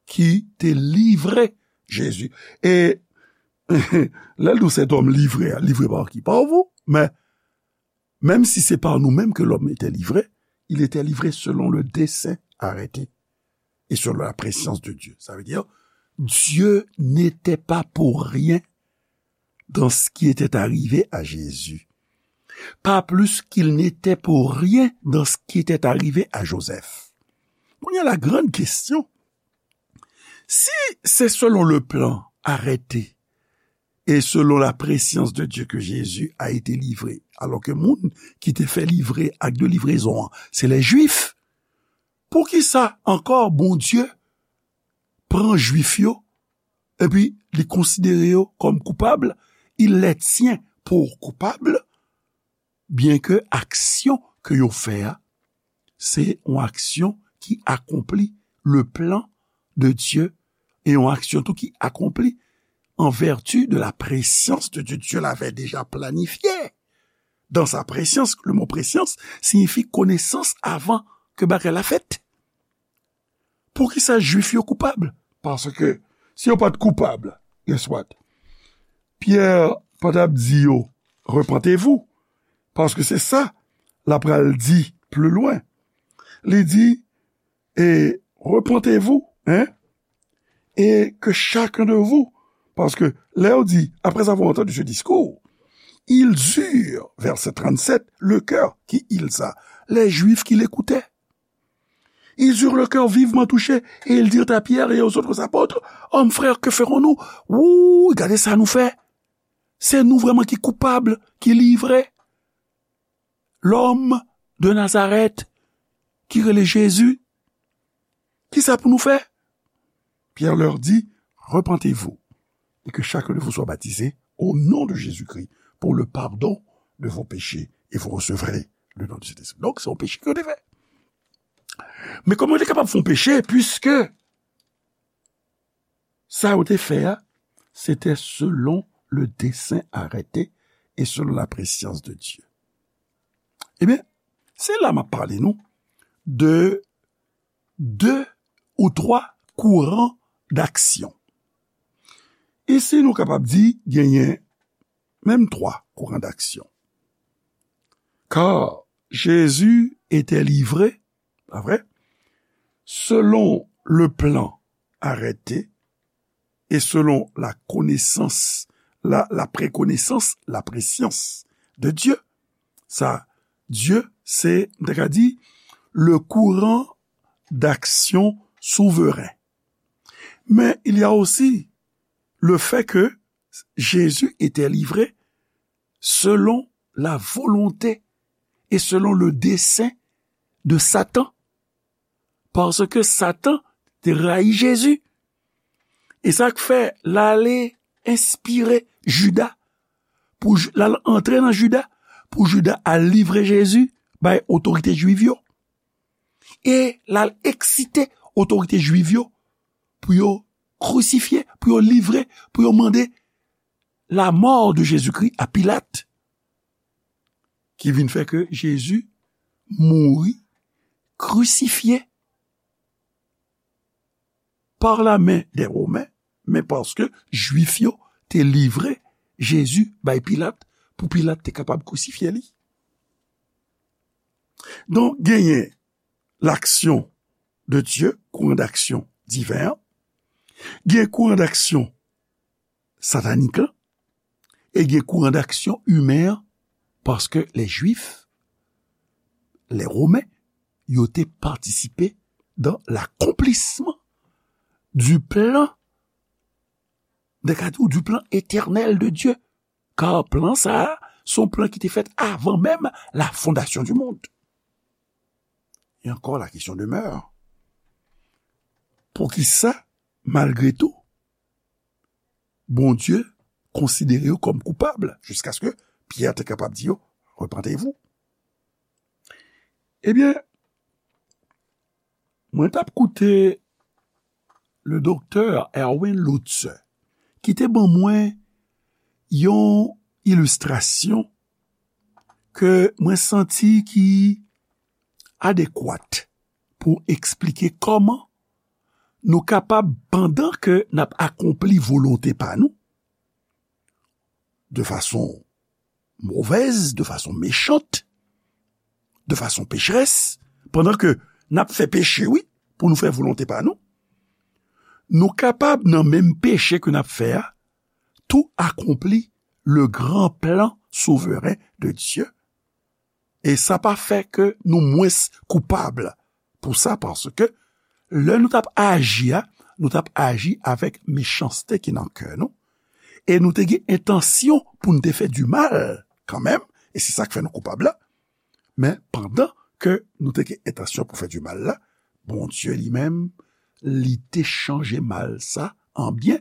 ki te livre Jezi. E lè l di w cet homme livré, livre par qui? Par vous. Men, menm si se pa nou menm ke lòm ete livre, il était livré selon le dessein arrêté et selon la prescience de Dieu. Ça veut dire, Dieu n'était pas pour rien dans ce qui était arrivé à Jésus, pas plus qu'il n'était pour rien dans ce qui était arrivé à Joseph. Kounye a, la grande question, si c'est selon le plan arrêté et selon la prescience de Dieu que Jésus a été livré, alò ke moun ki te fè livre, acte de livraison an, se les Juifs, poukisa ankò Bondye pran Jwif yo epi li konsidere yo kòm koupab, il les tient pour coupables, byen ke aksyon ke yo fè a, se yon aksyon ki akonpli le plan de Dieu, e yon aksyon tou ki akonpli en vertu de la prescience de Dieu. Dieu l'avait déjà planifié. Dans sa prescience, le mot prescience signifie connaissance avant que bagay la fèt. Poukisa Jwif yo koupab? Paske si yo pa t koupab, guess what? Pyè pa t ap di yo, repentez-vous, Paske se sa l ap pral di pli lwen. Li di, et repentez-vous, hein, et que chacun de vous, paske lè yo di, après avoir entendu ce discours, ils eurent, verset trente-sept, le cœur qui, ils a, les Juifs qui l'écoutaient. Ils eurent le cœur vivement touché, et ils dirent à Pierre et aux autres apôtres, hommes, frères, que ferons-nous? Wouy, gade sa nou fè. Se nou vrèman ki koupab, ki livre lòm de Nazarèt ki rele Jezi. Kisa pou nou fè? Pierre leur dit, repentez-vous et que chacun de vous soit baptisé au nom de Jésus-Christ pour le pardon de vos péchés et vous recevrez le don du Saint-Esprit. Donk, se yon peche ke yo te fè. Men kòman yo te kapab fè yon peche, puiske sa yo te fè a, se te selon le dessein arrêté et selon la prescience de Dieu. Ebyen, se la m ap pale nou de de ou twa kouran d'aksyon. Isi, nou kapab di genyen menm twa kouran d'aksyon. Car Jésus était livré, pa vre, selon le plan arrêté et selon la connaissance, la, la préconnaissance, la préscience de Dieu. Sa, Dieu, se, m ta ka di, le courant d'action souverain. Mais il y a aussi le fait que Jésus était livré selon la volonté et selon le dessein de Satan. Paske Satan te rayi Jezi. E sa k fè l ale enspire Jida, pou Ju- l al antre nan Jida, pou Jida al livre Jezi bay otorite jwiv yo. E l al eksite otorite jwiv yo pou yo krisifye, pou yo livre, pou yo mande la mort de Jésus-Christ à Pilate, ki vin fè ke Jezi mouri krisifye par la main des Romains, men paske Jwif yo te livre Jezi bay Pilat pou Pilat te kapab krisifye li. Donk, genyen l'action de Dieu, kouran d'aksyon diven an, gen kouran d'aksyon satanik lan, e gen kouran d'aksyon imen an, paske lè Jwif, lè Women, yo te patisipe dan lakonplisman du plan, de ka di w, du plan éternel de Dieu. Kar plan sa a, se yon plan ki te fèt avan menm la fondation du monde. Et encore, la question demeure. Poukisa, malgre tou, Bondye konsidere yo kòm koupab, jiskaske Pyè te kapab di yo, repentez-vous. Ebyen, mwen t ap koute le doktè Erwin Lutzer, ki te ban mwen yon ilistrasyon ke mwen santi ki adekwat pou eksplike kòman nou kapab, pandan ke n ap akonpli volonte pa nou, de fason movèz, de fason mechant, de fason pecherès, pandan ke n ap fè peche, wi, pou nou fè volonte pa nou, nou kapab, nan menm peche ke n ap fè a, tou akonpli le gran plan souveren de Dye. E sa pa fè ke nou mwens koupab pou sa, paske lè nou t ap aji a, nou t ap aji avèk mechanste ki nan kè nou, e nou te gen entansyon pou n te fè di mal kanmenm, e se sa k fè nou koupab la. Men pandan ke nou te gen entansyon pou fè di mal la, Bondye li menm, li te chanje mal sa an byen.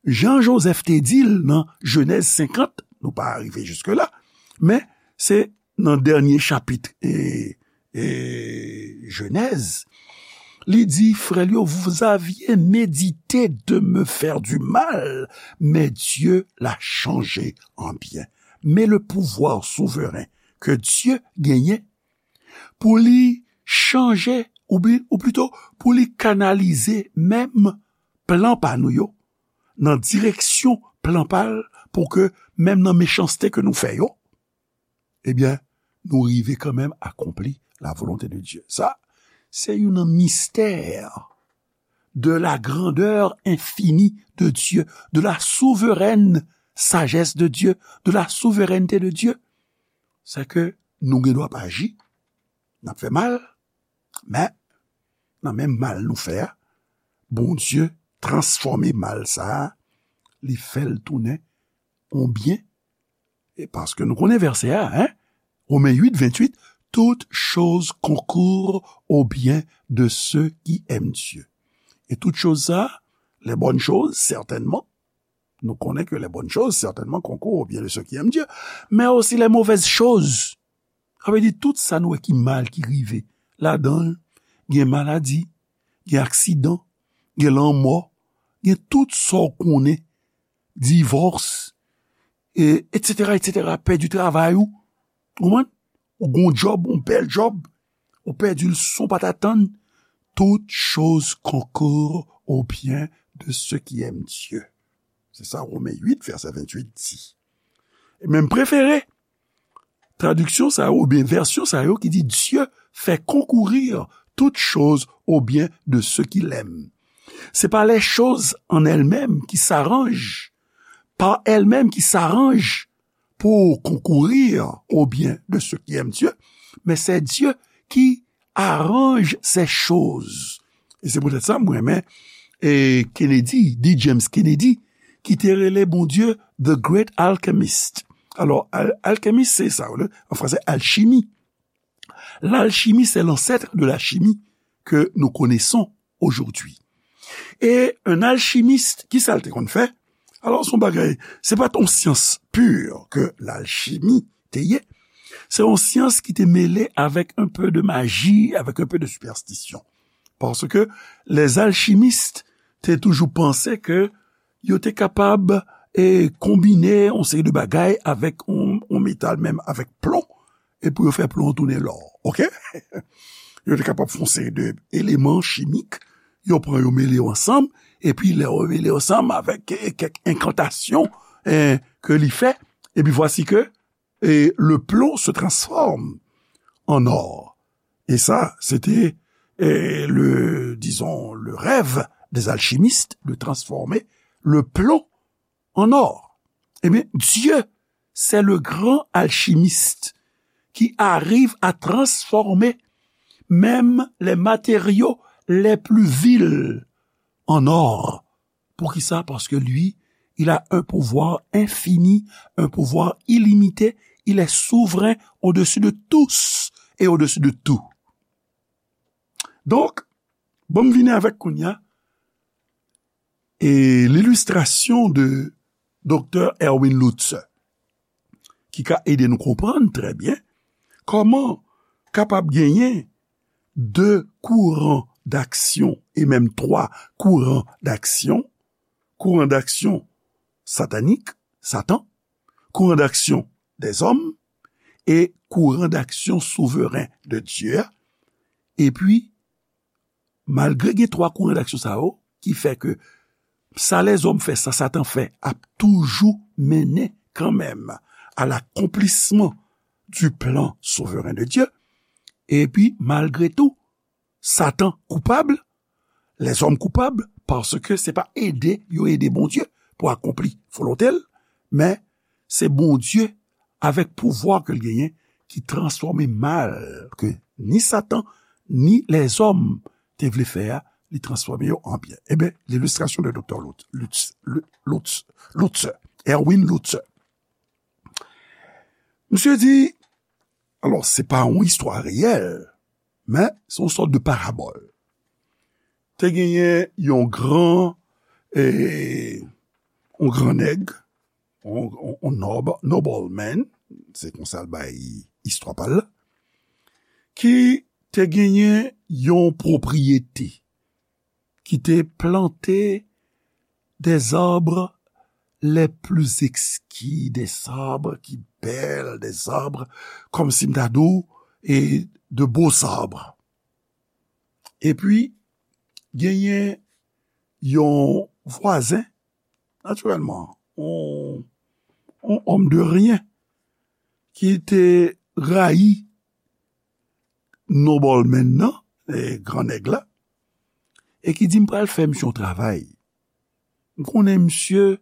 Jan Jozèf te di l nan Jenèz senkant, nou pa rive jiske la, men se nan dènye chapit e, e Jenèz, li di, frè l yo, vous aviez médité de me faire du mal, mais Dieu l'a changé en bien. Men le pouvoir souverain ke Dye genyen pou li chanje, ou bi-, ou plito, pou li kanalize menm plan pa nou yo, nan direksyon plan pa l, pou ke menm nan mechanste ke nou fè yo, ebyen, nou rive kanmenm akonpli la volonté de Dieu. Sa, se youn nan mistè de la grandeur infinie de Dieu, de la souveraine sagesse de Dieu, de la souveraineté de Dieu. Se ke nou gen dwa pa aji, n ap fè mal, men nan menm mal nou fè a, Bondye transfòme mal sa a, li fè l tounen yon byen. E paske nou konnen vèsè a, hein? Romen uit, venntuit, toutes choses concourent au bien de ceux qui aiment Dieu. E tout choz sa, les bonnes choses, certainement, nou konnen ke les bonnes choses, certainement, concourent au bien de ceux qui aiment Dieu, men osi les mauvaises choses. Sa vle di tout sa nou wè ki mal ki rive ladan l, gen maladi, gen aksidan, gen lanmò, gen tout sa w konnen, divòs, e, etsetera, etsetera, pèdi travay ou, ou konprann? Ou gon djòb, yon bèl djòb, ou pèdi l san w pa t atann. Toutes choses concourent au bien de ceux qui aiment Dieu. Se sa Romen uit, vèsè venntuit di. E menm prefere, tradiksyon sa yo, oubyen vèsyon sa yo ki di, Dieu fait concourir toutes choses au bien de ceux qui l'aiment. C'est pas les choses en elles-mêmes qui s'arrangent, par elles-mêmes qui s'arrangent pour concourir au bien de ceux qui aiment Dieu, mais c'est Dieu qui arrange ces choses. E se poutèt sa, mwen renmen, e, Kennedy, D. James Kennedy, ki te rele Bondye The Great Alchemist. Alò, al-, alkimist, se sa, an fransè, alchimie. L'alchimie, c'est l'ancêtre de la chimie que nous connaissons aujourd'hui. E yon alchimist, ki sa l te konn fè? Alò, se yon bagay, se pa t yon syans pur ke lalchimi te ye. Se yon syans ki te mele avèk un peu de maji, avèk un peu de superstition. Paske les alchimistes te toujou panse ke yo te kapab, e, konbine yon seri de bagay avèk yon, yon metal, menm avèk plon, e pou yo fè plon an tounen lò, oke? Yo te kapab fè yon seri de eleman chimik, yo pran yo mele yo ansanm, epi lè yo mele yo ansanm avèk, e, kèk enkantasyon, e, ke li fè, epi vwasi ke, e, le plomb se transforme en or. Et ça, c'était, e, le, disons, le rêve des alchimistes de transformer le plomb en or. Eh bien, Dieu, c'est le grand alchimiste qui arrive à transformer même les matériaux les plus vils en or. Poukisa? Parce que lui, il a un pouvoir infini, un pouvoir illimité. Il est souverain au-dessus de tous et au-dessus de tout. Donk, bon, m vini avèk kounye a, e, lilistrasyon de Doktè Erwin Lutzer, ki ka ede nou konprann trè byen kòman kapab genyen de kouran d'aksyon, e menm twa kouran d'aksyon, kouran d'aksyon satanik, Satan, kouran d'aksyon dèzòm, e kouran d'aksyon souveren de Dye a. Epi, malgre gen twa kouran d'aksyon sa yo, ki fè ke sa lèzòm fè, sa Satan fè, ap toujou mennen kanmenm à l'accomplissement du plan souverain de Dieu. Epi, malgre tou, Satan koupab, lèzòm koupab, paske se pa ede yo ede Bondye pou akonpli volonte l, men se Bondye, avèk pouvwa ke l genyen, ki transfòme mal ke ni Satan, ni lèzòm te vle fè a, li transfòme yo an byen. Eben, lilistrasyon de Doktè Lutz, Lutz, Lutz, Lutz, Erwin Lutzer. Misye di, alò, se pa yon istwa reyèl, men se yon sòt de parabòl. Te genyen yon gran, e, yon gran nèg, yon, yon, yon nob, nobleman, se konsa l bay istwa pa l la, ki te genyen yon pwopriyete, ki te plante des arbres les plus exquis, des arbres ki bèl, des arbres, kòmsi m ta di w, e de beaux arbres. Epi, genyen yon vwazen, natirèlman, yon, yon homme de rien, ki te rayi nobleman nan, e, gran nèg la, e ki di m pral fè misye yon travay. M konnen misye,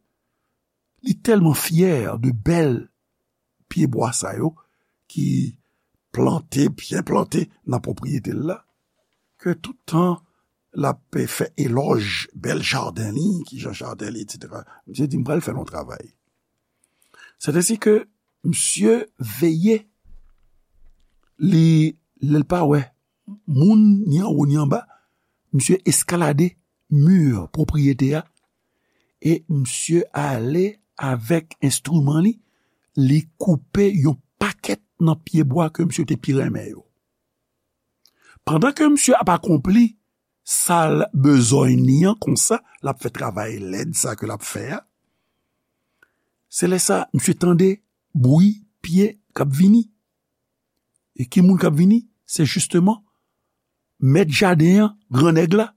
li tèlman fyè de bèl pyebwa sa yo ki plante, byen plante nan pwopriyete l la, ke tout tan l ap fè elòj bèl jaden li, ki jan jaden li, etsetera. Misye di, "M pral fè yon travay." Sètèsi ke misye veye, li, lè l pa wè moun ni anwo ni anba, misye eskalade mi pwopriyete a, e misye ale avèk enstriman li, li koupe yon pakèt nan pyebwa ke misye te pi renmen yo. Pandan ke misye ap akonpli sa l bezwen li an konsa, l ap fè travay lèd sa ke l ap fè a, se lè sa misye tande bri pye k ap vini. E ki moun k ap vini? Se jisteman mèt jaden an, gran nèg la.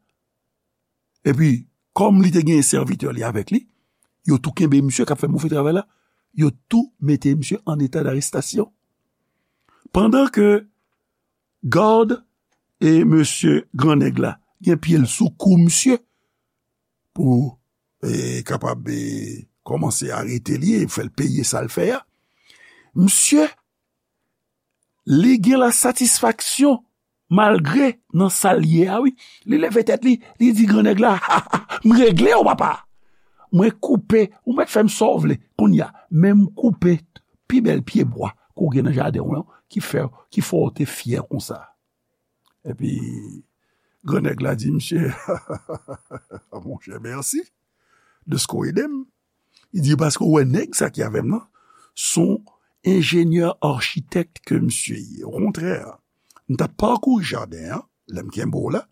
Epi, kòm li te gen sèvitè li avèk li, yo tou kenbe misye k ap fè move travay la, yo tou mete misye an eta darestasyon. Pandan ke gad e mesye gran nèg la gen pye l sou kou misye pou, e, kapab, e, kòmanse arete li e fè l peye sa l fè a, misye, li gen lasatisfaksyon malgre nan sa l ye a, wi. Li leve tèt li, li di gran nèg la, "Ha, ha, m regle w, papa. Mwen koupe, ou mèt fè m sa w vle. Kounye a, men m koupe pi bèl pyebwa ke w gen nan jaden w lan, ki fè, ki fè w te fyè konsa." Epi, gran nèg la di, "Misye, monchè, mèsi de ske w ede m." Li di, "Paske w wè nèg sa ki avè m nan, se yon enjenyè achitèk ke misye ye. Okontrè, m t ap pakouri jaden an, lè m kenbe w la,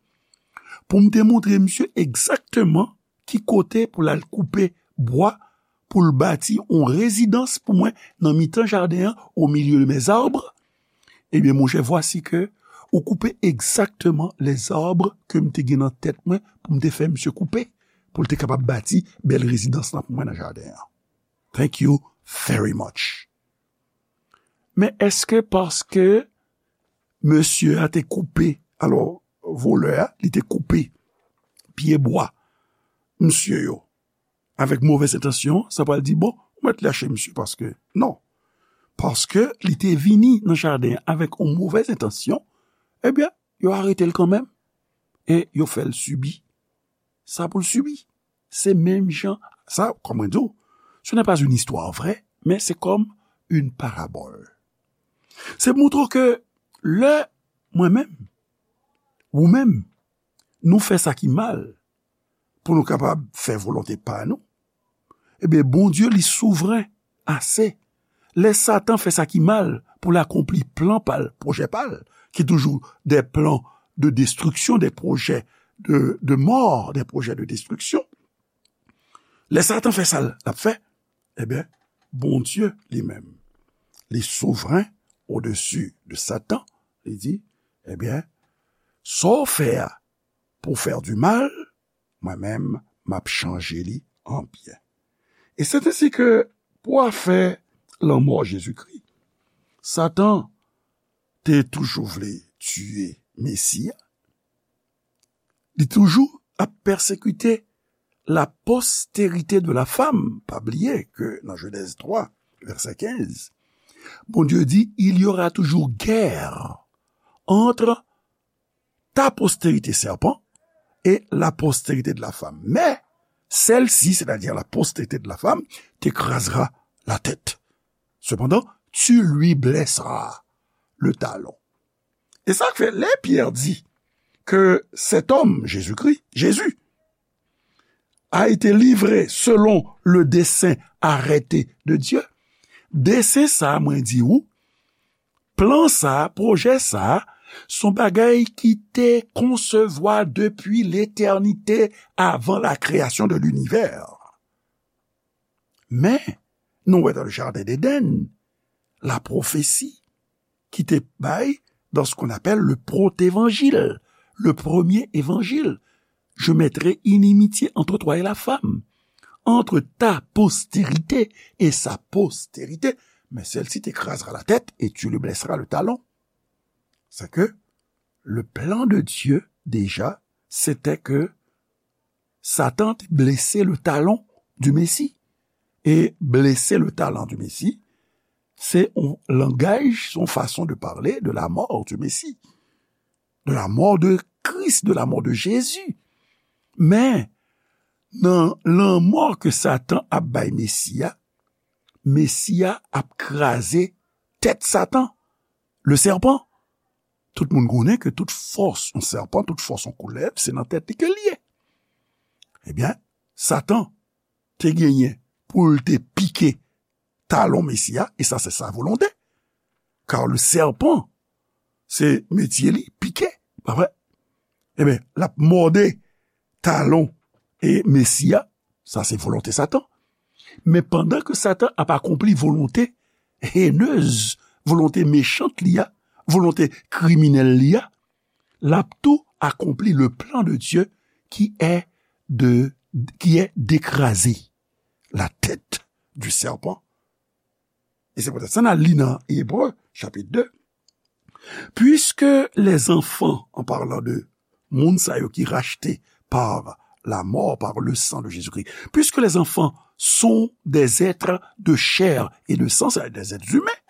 pou m te montre misye egzakteman ki kote pou l al koupe bwa pou l bati yon rezidans pou mwen nan mitan jaden an, au milieu de mes arbres. Ebyen, monchè, vwasi ke ou koupe egzakteman les arbres ke m te gen nan tèt mwen pou m te fè misye koupe, pou l te kapab bati bèl rezidans lan pou mwen nan jaden an. Thank you very much." Men èske paske mesye a te koupe, alò, volè a, li te koupe pyebwa misye yo avèk movèz entansyon, sa pral di, "Bon, ou mèt lache misye paske," non. Paske li te vini nan jaden an avèk yon movèz entansyon, ebyen, yo arete l kanmenm e yo fè l sibi sa pou l sibi. Se menm jan, sa, kòm mwen di w, ce n'est pas une histoire vraie, mais c'est comme une parabole. Se montre ke lè mwen menm, ou menm, nou fè sa ki mal, pou nou kapab fè volonte pa nou, ebyen, Bondye, li souvren ase. Lè Satan fè sa ki mal pou l akonpli plan pa l, pwojè pa l, ki toujou des plans de destruction, des projets de, de mort, des projets de destruction. Lè Satan fè sa l ap fè, ebyen, Bondye li menm, li souvren odesi de Satan, li di, ebyen, sa w fè a pou fè du mal, mwen menm, m ap chanje li an byen. E se ensi ke pou afè lanmò Jezikri, Satan te toujou vle tiye Mesi a, li toujou ap pèsekite la postérité de la femme. Pa bliye ke nan Jenèz twa, vèsè kenz, Bondye di, il y aura toujours guerre entre ta postérité serpent et la postérité de la femme. Mais celle-ci, c'est-à-dire la postérité de la femme, t'écrasera la tête. Cependant, tu lui blesseras le talon. E sa k fè, lè Pyè di ke cet homme, Jésus-Christ, Jésus, a été livré selon le dessein arrêté de Dieu, desen sa, mwen di ou, plan sa, pwojè sa, se yon bagay ki te konsevwa depi letènite, avan la création de l'univers. Men, nou wè dans le jardin d'Éden, la prophétie ki te bay dans ce qu'on appelle le protévangile, le premier évangile. Je mettrai inimitié entre toi et la femme, entre ta postérité et sa postérité. mais celle-ci t'écrasera la tête et tu lui blesseras le talon. C'est que le plan de Dieu, déjà, c'était que Satan te blese le talon du Messie. E blese le talon du Messie, se yon langaj, se yon fason de pale de la mò du Messie, de la mò de Kris, de la mò de Jezi. Men, nan lanmò ke Satan ap bay Mesi a, Mesi a ap kraze tèt Satan, le serpent. Tout moun konnen ke tout fòs yon sèpan, tout fòs yon koulèv, se nan tèt li ke l ye. Ebyen, Satan te genyen pou l te pike talon Mesi a, e sa se sa volonte. Kar le serpent, se metye li, pike, pa vre? Ebyen, l ap mòde talon e Mesi a, sa se volonte Satan. Men pandan ke Satan ap akonpli volonte henez, volonte mechant li a, volonte kriminèl li a, l ap tou akonpli le plan de Dieu qui est de, qui est d'écraser la tête du serpent. E se poutèt sa n al li nan Ebre, chapit de. Puisque les enfants, en parlant de moun sa yo ki rachte par la mort, par le sang de Jésus-Christ, puisque les enfants sont des êtres de chair et de sang, c'est-à-dire des êtres humains,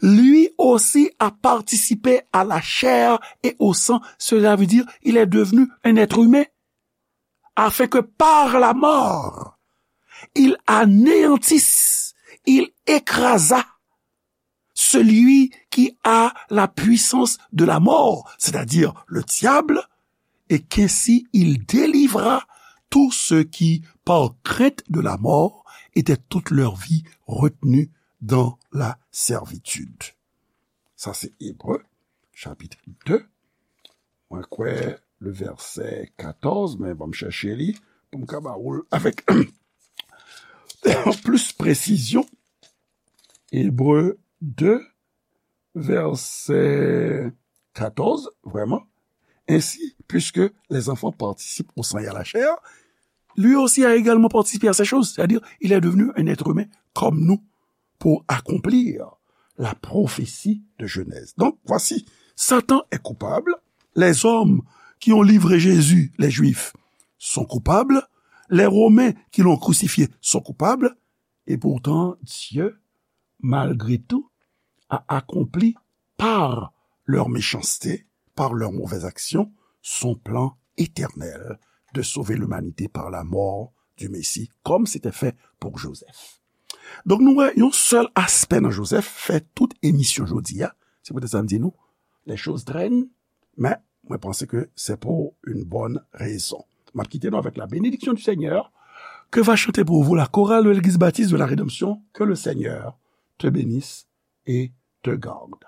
lui aussi a participé à la chair et au sang, cela veut dire il est devenu un être humain, afin que par la mort, il anéantisse, il écrasa celui qui a la puissance de la mort, c'est-à-dire le diable, et qu'ainsi il délivra tous ceux qui, par crainte de la mort, étaient toute leur vie retenus dans la servitude. Sa se Ebre, chapit de. Mwen kwè le vèsè katòz, men ban m chèche li pou m ka ba ou l avèk plis presizyon. Ebre de, vèsè katòz, vraiment. Ainsi, puisque les enfants participent au sang et à la chair, lui aussi a également participé à ces choses. C'est-à-dire, il est devenu un être humain comme nous pour accomplir la prophétie de Genèse. Donc, voici, Satan est coupable. Les hommes qui ont livré Jésus, les Juifs, sont coupables. Les Romains qui l'ont crucifié sont coupables. Et pourtant, Dieu, malgré tout, a accompli par leur méchanceté, par leurs mauvaises actions, son plan éternel de sauver l'humanité par la mort du Messie, comme c'était fait pour Joseph. Donk, nou wè yon sèl aspè nan Joseph fè tout emisyon jodi a. Se poutèt sa m di nou, les choses traînent, men mwen panse ke c'est pour une bonne raison. M ap kite nou avec la bénédiction du Seigneur, que va chanter pour vous la chorale de l'Église baptiste de la Rédemption. Que le Seigneur te bénisse et te garde.